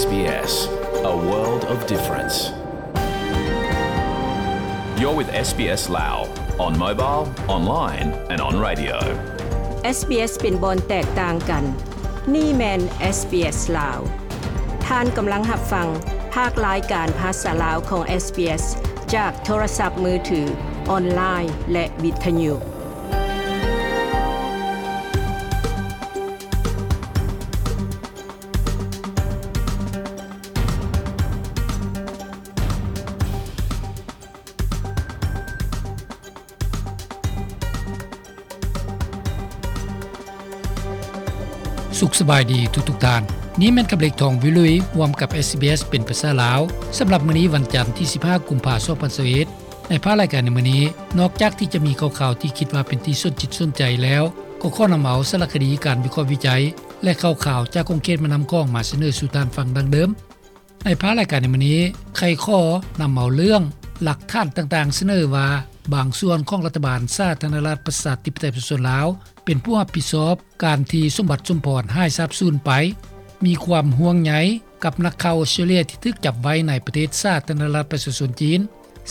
SBS, a world of difference. You're with SBS Lao on mobile, online and on radio. SBS ເປັນບ່ອນແຕກຕ່າງກັນ. ນີ້ແມ່ນ SBS ລາວ. ທ່ານກຳລັງຮັບຟັງພາກລາຍການພາສາລາວຂອງ SBS ຈາກໂທລະສັບມືຖື, ອອນລາຍ ແລະ ວິທະຍຸ. ສຸກສະບາຍດີທຸກໆທ່ານ. ນີ້ແມ່ນກັບເລັກທອງວິລຸຍ ຮ່ວມກັບ SBS ເປັນພາສາລາວ. ສຳລັບມື້ນີ້ວັນຈັນທີສິບຫ້າ ກຸມພາ ສອງພັນຊາວເອັດ ໃນພາກລາຍການໃນມື້ນີ້ ນອກຈາກທີ່ຈະມີຂ່າວໆທີ່ຄິດວ່າເປັນທີ່ສົນຈິດສົນໃຈແລ້ວ, ກໍຂໍນຳເອົາສາລະຄະດີ, ການວິເຄາະວິໄຈ ແລະ ຂ່າວໆຈາກຂົງເຂດແມ່ນ້ຳຂອງມາສະເໜີສູ່ທ່ານຟັງດັ່ງເດີມ. ໃນພາກລາຍການໃນມື້ນີ້ ໄຂຂໍ້ນຳເອົາເລື່ອງຫຼັກຖານຕ່າງໆສະເໜີວ່າ ບາງສ່ວນຂອງລັດຖະບານສາທາລະນະລັດປະຊາທິປະໄຕປະຊາຊົນລາວ ເປັນຜູ້ຮັບຜິດຊອບການທີ່ສົມບັດ ສົມພອນ ຫາຍສາບສູນໄປ, ມີຄວາມຫ່ວງໃຍກັບນັກຂ່າວອອສເຕຣເລຍທີ່ຖືກຈັບໄວ້ໃນປະເທດສາທາລະນະລັດປະຊາຊົນຈີນ,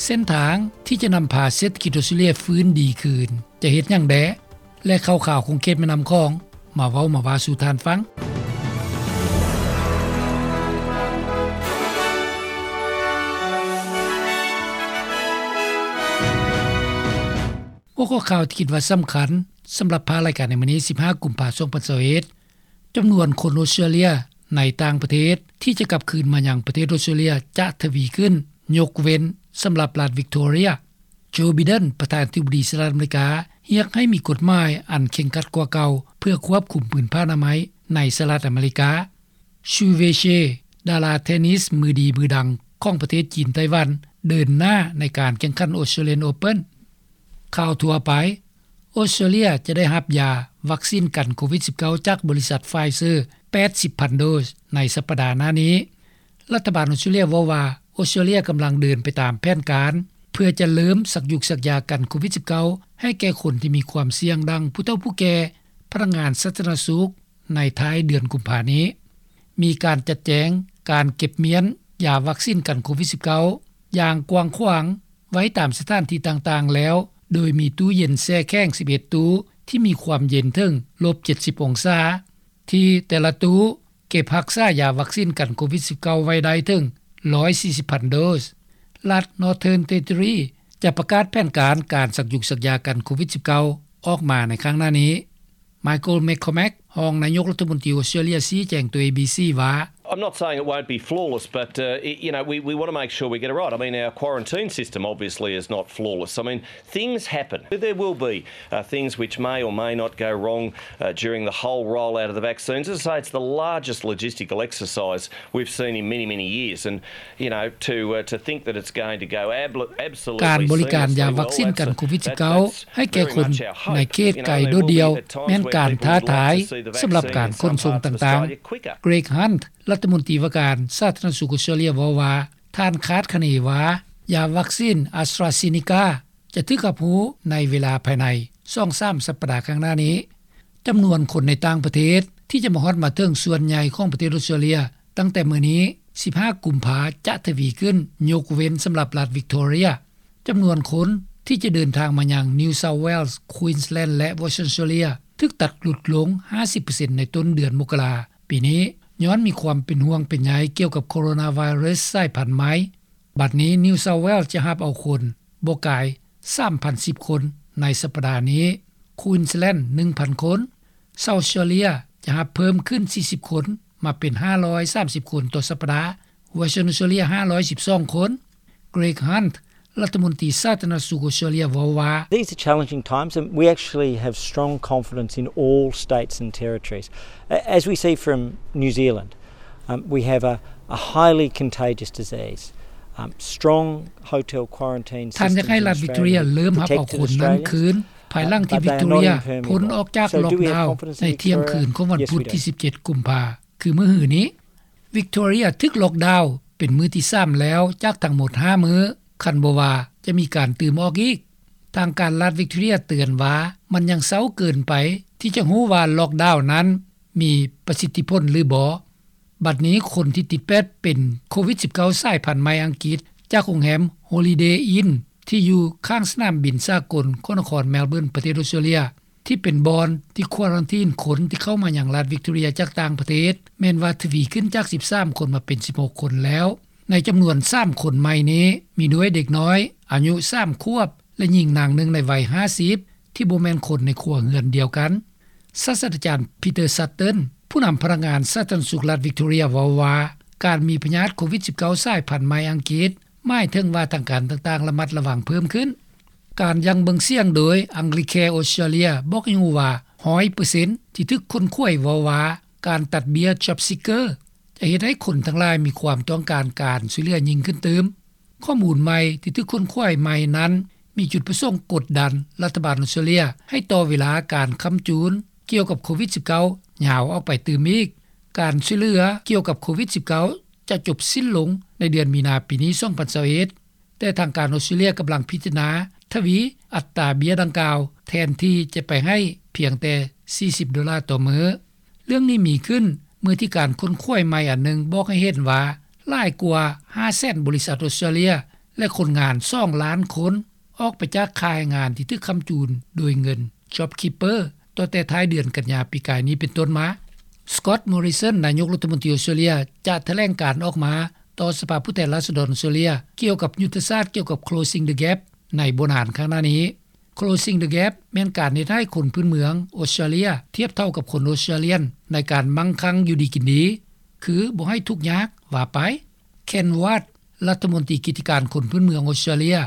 ເສັ້ນທາງທີ່ຈະນຳພາເສດຖະກິດອອສເຕຣເລຍຟື້ນດີຄືນ ຈະເຮັດຫຍັງແດ່ ແລະ ຂ່າວໆຂົງເຂດແມ່ນ້ຳຂອງ ມາເວົ້າມາວ່າສູ່ທ່ານຟັງ. ຫົວຂໍ້ຂ່າວທີ່ຄິດວ່າສຳຄັນສຳລັບພາກລາຍການໃນມື້ນີ້ ສິບຫ້າ ກຸມພາ ສອງພັນຊາວເອັດ ຈຳນວນຄົນອອສເຕຣເລຍໃນຕ່າງປະເທດທີ່ຈະກັບຄືນມາຍັງປະເທດອອສເຕຣເລຍຈະທະວີຂຶ້ນ, ຍົກເວັ້ນສຳລັບລັດວິກໂຕເຣຍ. ໂຈ ໄບເດັນ ປະທານາທິບໍດີສະຫະລັດອາເມລິກາ ຮຽກໃຫ້ມີກົດໝາຍອັນເຄັ່ງຄັດກວ່າເກົ່າ ເພື່ອຄວບຄຸມພື້ນຜ້າອະນາໄມໃນສະຫະລັດອາເມລິກາ. ຊູເວເຊ ດາລາເທນນິສມືດີມືດັງຂອງປະເທດຈີນໄຕ້ຫວັນ ເດີນໜ້າໃນການແຂ່ງຂັນ Australian Open. ຂ່າວທົ່ວໄປ, ອອສເຕຣເລຍຈະໄດ້ຮັບຢາວັກຊີນກັນໂຄວິດສິບເກົ້າ ຈາກບໍລິສັດ Pfizer ແປດສິບພັນໂດສໃນສັບປະດາໜ້ານີ້. ລັດຖະບານອອສເຕຣເລຍເວົ້າວ່າ ອອສເຕຣເລຍກຳລັງເດີນໄປຕາມແຜນການ ເພື່ອຈະເລີ່ມສັກຢຸກສັກຢາກັນໂຄວິດສິບເກົ້າ ໃຫ້ແກ່ຄົນທີ່ມີຄວາມສ່ຽງ ດັ່ງຜູ້ເຖົ້າຜູ້ແກ່, ພະນັກງານສາທາລະນະສຸກ ໃນທ້າຍເດືອນກຸມພານີ້. ມີການຈັດແຈງການເກັບມ້ຽນຢາວັກຊີນກັນໂຄວິດສິບເກົ້າ ຢ່າງກວ້າງຂວາງໄວ້ຕາມສະຖານທີ່ຕ່າງໆແລ້ວ, ໂດຍມີຕູ້ເຢັນແຊ່ແຂງສິບເອັດຕູ້ ທີ່ມີຄວາມເຢັນເຖິງລົບເຈັດສິບອົງສາ, ທີ່ແຕ່ລະຕູ້ເກັບຮັກສາຢາວັກຊີນກັນໂຄວິດສິບເກົ້າໄວ້ໄດ້ເຖິງຮ້ອຍສີ່ສິບພັນໂດສ. ລັດ Northern Territory ຈະປະກາດແຜນການການສັກຢຸກສັກຢາກັນໂຄວິດສິບເກົ້າ ອອກມາໃນຄັ້ງໜ້ານີ້. Michael McCormack ຮອງນາຍົກລັດຖະມົນຕີອອສເຕຣເລຍ ຊີ້ແຈງຕໍ່ ເອບີຊີ ວ່າ, I'm not saying it won't be flawless, but, uh, y-, you know, we, we want to make sure we get it right. I mean, our quarantine system obviously is not flawless. I mean, things happen. There will be, uh, things which may or may not go wrong, uh, during the whole rollout of the vaccines. As I say, it's the largest logistical exercise we've seen in many, many years. And, you know, to, uh, to think that it's going to go ab-, absolutely ການບໍລິການຢາວັກຊີນກັນໂຄວິດສິບເກົ້າ ໃຫ້ແກ່ຄົນໃນເຂດໄກໂດດດ່ຽວ ແມ່ນການທ້າທາຍສຳລັບການຂົນສົ່ງຕ່າງໆ. Greg Hunt ລັດຖະມົນຕີວ່າການສາທາລະນະສຸກອອສເຕຣເລຍເວົ້າວ່າ ທ່ານຄາດຄະເນວ່າ ຢາວັກຊີນ AstraZeneca ຈະຖືກຮັບຮູ້ໃນເວລາພາຍໃນສອງສາມສັບປະດາຂ້າງໜ້ານີ້. ຈຳນວນຄົນໃນຕ່າງປະເທດທີ່ຈະມາຮອດມາເຖິງສ່ວນໃຫຍ່ຂອງປະເທດອອສເຕຣເລຍ ຕັ້ງແຕ່ມື້ນີ້ ສິບຫ້າ ກຸມພາ ຈະທະວີຂຶ້ນ, ຍົກເວັ້ນສຳລັບລັດວິກໂຕເຣຍ. ຈຳນວນຄົນທີ່ຈະເດີນທາງມາຍັງ New South Wales, Queensland ແລະ Western Australia ຖືກຕັດຫຼຸດລົງຫ້າສິບເປີເຊັນໃນຕົ້ນເດືອນມົກກະລາປີນີ້ ຍ້ອນມີຄວາມເປັນຫ່ວງເປັນໃຍກ່ຽວກັບໂຄໂຣນາໄວຣັສສາຍພັນໃໝ່. ບັດນີ້ New South Wales ຈະຮັບເອົາຄົນບໍ່ກາຍສາມພັນສິບຄົນໃນສັບປະດານີ້, Queensland ໜຶ່ງພັນຄົນ, South Australia ຈະຮັບເພີ່ມຂຶ້ນສີ່ສິບຄົນ ມາເປັນຫ້າຮ້ອຍສາມສິບຄົນຕໍ່ສັບປະດາ, Western Australia ຫ້າຮ້ອຍສິບສອງຄົນ. Greg Hunt ລັດຖະມົນຕີສາທາລະນະສຸກອອສເຕຣເລຍເວົ້າວ່າ, These are challenging times and we actually have strong confidence in all states and territories. A-, as we see from New Zealand, um, we have a, a highly contagious disease, um, strong hotel quarantine systems in Australia protected Australians. ທ່ານຢາກໃຫ້ລັດວິກຕໍເຣຍເລີ່ມຮັບເອົາຄົນນັ້ນຄືນ ພາຍຫຼັງທີ່ວິກຕໍເຣຍພົ້ນອອກຈາກລັອກດາວໃນທ່ຽງຄືນຂອງວັນພຸດທີສິບເຈັດ ກຸມພາ ຄືມື້ຮືນີ້. ວິກຕໍເຣຍຖືກລັອກດາວເປັນມື້ທີສາມແລ້ວຈາກທັງໝົດຫ້າມື້, ຄັນບໍ່ວ່າຈະມີການຕື່ມອອກອີກ. ທາງການລັດວິກຕໍເຣຍເຕືອນວ່າ ມັນຍັງເຊົ້າເກີນໄປທີ່ຈະຮູ້ວ່າລັອກດາວນັ້ນມີປະສິດທິຜົນຫຼືບໍ່. ບັດນີ້ຄົນທີ່ຕິດແປດເປັນໂຄວິດ-19 ສາຍພັນໃໝ່ອັງກິດ ຈາກໂຮງແຮມ Holiday Inn ທີ່ຢູ່ຂ້າງສະໜາມບິນສາກົນ ຂອງນະຄອນ Melbourne ປະເທດອອສເຕຣເລັຽ ທີ່ເປັນບ່ອນທີ່ຄວາຣັນທີນຄົນທີ່ເຂົ້າມາຍັງລັດ Victoria ຈາກຕ່າງປະເທດ ແມ່ນວ່າທະວີຂຶ້ນຈາກ ສິບສາມຄົນມາເປັນ ສິບຫົກຄົນແລ້ວ. ໃນຈຳນວນ ສາມຄົນໃໝ່ນີ້ ມີດ້ວຍເດັກນ້ອຍອາຍຸ ສາມຂວບ ແລະ ຍິງນາງໜຶ່ງໃນໄວ ຫ້າສິບ ທີ່ບໍ່ແມ່ນຄົນໃນຄົວເຮືອນດຽວກັນ. ສາດສະດາຈານ Peter Sutton ຜູ້ນຳພະນັກງານສາທາລະນະສຸກລັດ Victoria ເວົ້າວ່າ ການມີພະຍາດໂຄວິດ-19 ສາຍພັນໃໝ່ອັງກິດ ໝາຍເຖິງວ່າທາງການຕ່າງໆ ລະມັດລະວັງເພີ່ມຂຶ້ນ. ການຢັ້ງເບິ່ງສຽງໂດຍ Anglicare Australia ບອກໃຫ້ຮູ້ວ່າ ຮ້ອຍເປີເຊັນ ທີ່ຖືກຄົ້ນຄວ້າຍເວົ້າວ່າ ການຕັດເບ້ຍ JobSeeker ຈະເຮັດໃຫ້ຄົນທັງຫຼາຍມີຄວາມຕ້ອງການການຊ່ວຍເຫຼືອຍິ່ງຂຶ້ນຕື່ມ. ຂໍ້ມູນໃໝ່ທີ່ຖືກຄົ້ນຄວ້າຍໃໝ່ນັ້ນ ມີຈຸດປະສົງກົດດັນລັດຖະບານອອສເຕຣເລັຽ ໃຫ້ຕໍ່ເວລາການຄ້ຳຈູນກ່ຽວກັບໂຄວິດ-19 ຍາວອອກໄປຕື່ມອີກ. ການຊ່ວຍເຫຼືອກ່ຽວກັບໂຄວິດ-19 ຈະຈົບສິ້ນລົງໃນເດືອນມີນາປີນີ້ ສອງພັນຊາວເອັດ ແຕ່ທາງການອອສເຕຣເລັຽກຳລັງພິຈາລະນາທະວີອັດຕາເບ້ຍດັ່ງກ່າວ ແທນທີ່ຈະໄປໃຫ້ພຽງແຕ່ ສີ່ສິບໂດລາຕໍ່ມື້. ເລື່ອງນີ້ມີຂຶ້ນເມື່ອທີ່ການຄົ້ນຄວ້າຍໃໝ່ອັນໜຶ່ງບອກໃຫ້ເຫັນວ່າ ຫຼາຍກວ່າ ຫ້າແສນ ບໍລິສັດອອສເຕຣເລັຽ ແລະ ຄົນງານ ສອງລ້ານຄົນ ອອກໄປຈາກຄ້າຍແຮງງານທີ່ຖືກຄ້ຳຈູນໂດຍເງິນ JobKeeper ຕັ້ງແຕ່ທ້າຍເດືອນກັນຍາປີກາຍນີ້ເປັນຕົ້ນມາ. Scott Morrison ນາຍົກລັດຖະມົນຕີອອສເຕຣເລັຽ ຈະຖະແຫຼງການອອກມາຕໍ່ສະພາຜູ້ແທນລາຊະດອນອອສເຕຣເລັຽ ກ່ຽວກັບຍຸດທະສາດກ່ຽວກັບ Closing the Gap ໃນບໍ່ນານຂ້າງໜ້ານີ້. Closing the Gap ແມ່ນການເຮັດໃຫ້ຄົນພື້ນເມືອງອອສເຕຣເລັຽທຽບເທົ່າກັບຄົນອອສເຕຣເລັຽນໃນການໝັ່ງຄັ່ງຢູ່ດີກິນດີ ຄືບໍ່ໃຫ້ທຸກຍາກວ່າໄປ. Ken Ward ລັດຖະມົນຕີກິດຈະການຄົນພື້ນເມືອງອອສເຕຣເລັຽ,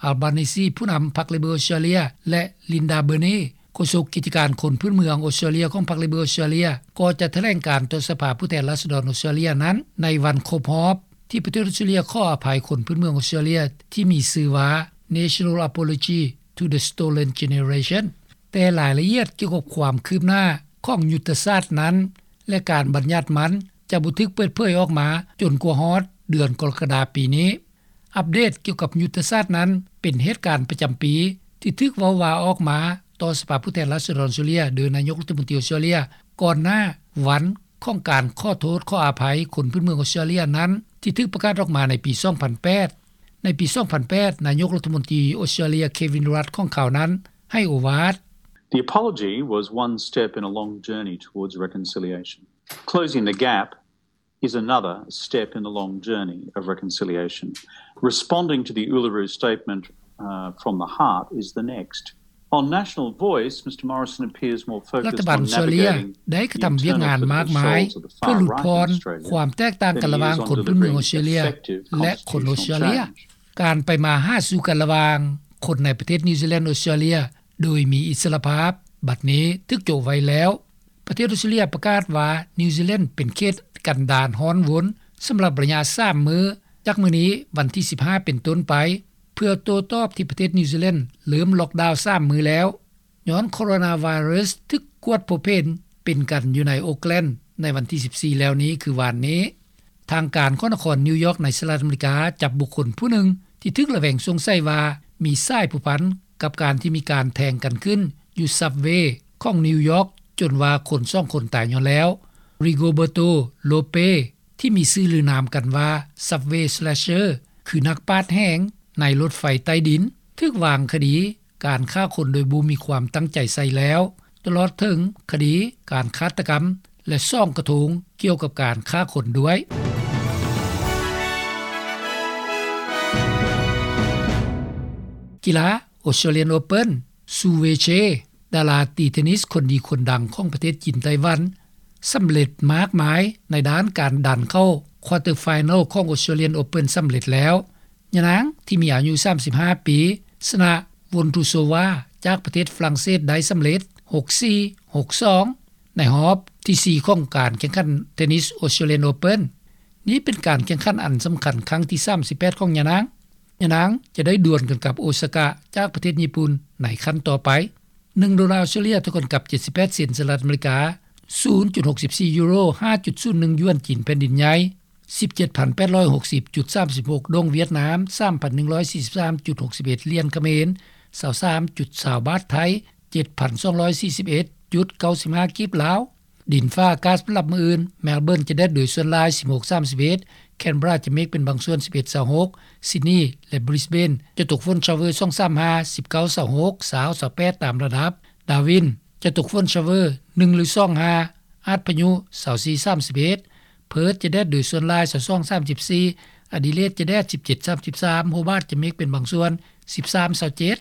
Albanese ຜູ້ນຳພັກ Labor ອອສເຕຣເລັຽ ແລະ Linda Burney ໂຄສົກກິດຈະການຄົນພື້ນເມືອງອອສເຕຣເລັຽຂອງພັກ Labor ອອສເຕຣເລັຽ ກໍຈະຖະແຫຼງການຕໍ່ສະພາຜູ້ແທນລາຊະດອນອອສເຕຣເລັຽນັ້ນ ໃນວັນຄົບຮອບທີ່ປະເທດອອສເຕຣເລັຽຂໍອະໄພຄົນພື້ນເມືອງອອສເຕຣເລັຽ ທີ່ມີຊື່ວ່າ National Apology to the Stolen Generation. ແຕ່ລາຍລະອຽດກ່ຽວກັບຄວາມຄືບໜ້າຂອງຍຸດທະສາດນັ້ນ ແລະ ການບັນຍັດມັນ ຈະບໍ່ຖືກເປີດເຜີຍອອກມາຈົນກວ່າຮອດເດືອນກໍລະກະດາປີນີ້. ອັບເດດກ່ຽວກັບຍຸດທະສາດນັ້ນ ເປັນເຫດການປະຈຳປີທີ່ຖືກເວົ້າວ່າອອກມາຕໍ່ສະພາຜູ້ແທນລາຊະດອນອອສເຕຣເລັຽ ໂດຍນາຍົກລັດຖະມົນຕີອອສເຕຣເລັຽ ກ່ອນໜ້າວັນຂອງການຂໍໂທດຂໍອະໄພຄົນພື້ນເມືອງອອສເຕຣເລັຽນັ້ນ ທີ່ຖືກປະກາດອອກມາໃນປີສອງພັນແປດ. ໃນປີສອງພັນແປດ ນາຍົກລັດຖະມົນຕີອອສເຕຣເລັຽ Kevin Rudd ຂອງຄາວນັ້ນໃຫ້ໂອວາດ. The apology was one step in a long journey towards reconciliation. Closing the gap is another step in the long journey of reconciliation. Responding to the Uluru Statement, uh, from the heart is the next. On National Voice, Mr Morrison appears more focused on navigating the internal political shoals of the far right in Australia than he is on the ລັດຖະບານອອສເຕຣເລັຽໄດ້ກະທຳວຽກງານມາກມາເພື່ອຫຼຸດຜ່ອນຄວາມແຕກຕ່າງກັນລະຫວ່າງຄົນພື້ນເມືອງອອສເຕຣເລັຽ ແລະ ຄົນອອສເຕຣເລັຽ. ການໄປມາຫາສູ່ກັນລະຫວ່າງຄົນໃນປະເທດນິວຊີແລນ ອອສເຕຣເລັຽ ໂດຍມີອິດສະລະພາບ ບັດນີ້ຖືກໂຈະໄວ້ແລ້ວ. ປະເທດອອສເຕຣເລັຽປະກາດວ່າ ນິວຊີແລນເປັນເຂດກັນດານຮ້ອນວົນສຳລັບໄລຍະສາມມື້ ຈາກມື້ນີ້ວັນທີສິບຫ້າເປັນຕົ້ນໄປ ເພື່ອໂຕ້ຕອບທີ່ປະເທດນິວຊີແລນເລີ່ມລັອກດາວສາມມື້ແລ້ວ ຍ້ອນໂຄໂຣນາໄວຣັສຖືກກວດພົບເຫັນເປັນກັນຢູ່ໃນໂອກແລນໃນວັນທີສິບສີ່ແລ້ວນີ້ ຄືວານນີ້. ທາງການຂອງນະຄອນນິວຢອກໃນສະຫະລັດອາເມລິກາ ຈັບບຸກຄົນຜູ້ໜຶ່ງທີ່ຖືກລະແວງສົງໄສວ່າມີສາຍພົວພັນກັບການທີ່ມີການແທງກັນຂຶ້ນຢູ່ຊັບເວຂອງນິວຢອກ ຈົນວ່າຄົນສອງຄົນຕາຍຍ້ອນແລ້ວ. Rigoberto Rope ທີ່ມີຊື່ລືນາມກັນວ່າ Subway Slasher ຄືນັກປາດແຫງໃນລົດໄຟໃຕ້ດິນ ຖືກວາງຄະດີການຂ້າຄົນໂດຍບໍ່ມີຄວາມຕັ້ງໃຈໃສ່ແລ້ວ ຕະຫຼອດເຖິງຄະດີການຄາດຕະກຳ ແລະ ສອງກະທົງກ່ຽວກັບການຂ້າຄົນດ້ວຍ. ກິລາ Australian Open, Sue Wei Che ດາລາຕີເທນນິສຄົນດີຄົນດັງຂອງປະເທດຈີນໄຕ້ຫວັນ ສຳເລັດມາກມາຍໃນດ້ານການດັນເຂົ້າ quarter final ຂອງ Australian Open ສຳເລັດແລ້ວ. ຍານາງທີ່ມີອາຍຸສາມສິບຫ້າປີ ຊະນະ Vondrousova ຈາກປະເທດຝຣັ່ງເສດໄດ້ສຳເລັດ ຫົກສີ່ ຫົກສອງ ໃນຮອບທີສີ່ຂອງການແຂ່ງຂັນເທນນິສ Australian Open. ນີ້ເປັນການແຂ່ງຂັນອັນສຳຄັນຄັ້ງທີສາມສິບແປດຂອງຍານາງ. ຍານາງຈະໄດ້ດວນກັນກັບ ໂອຊາກະ ຈາກປະເທດຍີ່ປຸ່ນໃນຂັ້ນຕໍ່ໄປ. ໜຶ່ງໂດລາອອສເຕຣເລັຽ ເທົ່າກັນກັບເຈັດສິບແປດເຊັນສະຫະລັດອາເມລິກາ, ສູນຈຸດຫົກສິບສີ່ຢູໂຣ, ຫ້າຈຸດສູນໜຶ່ງຢວນຈີນແຜ່ນດິນໃຫຍ່, ສິບເຈັດພັນແປດຮ້ອຍຫົກສິບຈຸດສາມສິບຫົກ ໂດງຫວຽດນາມ, ສາມພັນໜຶ່ງຮ້ອຍສີ່ສິບສາມຈຸດຫົກສິບເອັດຫຼຽນຂະເໝນ, ຊາວສາມຈຸດຊາວບາດໄທ, ເຈັດພັນສອງຮ້ອຍສີ່ສິບເອັດຈຸດເກົ້າສິບຫ້າກີບລາວ. ດິນຟ້າອາກາດສຳລັບມື້ອື່ນ: ແມລເບີນຈະແດດໂດຍສ່ວນຫຼາຍ ສິບຫົກ ສາມສິບເອັດ, ແຄນເບີຣາຈະເມກເປັນບາງສ່ວນ ສິບເອັດ ຊາວຫົກ, ຊິດນີ ແລະ ບຣິສເບນຈະຕົກຝົນຊາວເວີ ສອງ ສາມ ຫ້າ, ສິບເກົ້າ ຊາວຫົກ, ຊາວ ຊາວແປດ ຕາມລະດັບ, ດາວິນຈະຕົກຝົນຊາວເວີ ໜຶ່ງ ຫຼື ສອງ ຫ້າ, ອາດພະຍຸ ຊາວສີ່ ສາມສິບເອັດ, ເພີດຈະແດດໂດຍສ່ວນຫຼາຍ ຊາວສອງ ສາມສິບສີ່, ອະດີເລດຈະແດດ ສິບເຈັດ ສາມສິບສາມ, ໂຮບາດຈະເມກເປັນບາງສ່ວນ ສິບສາມ ຊາວເຈັດ.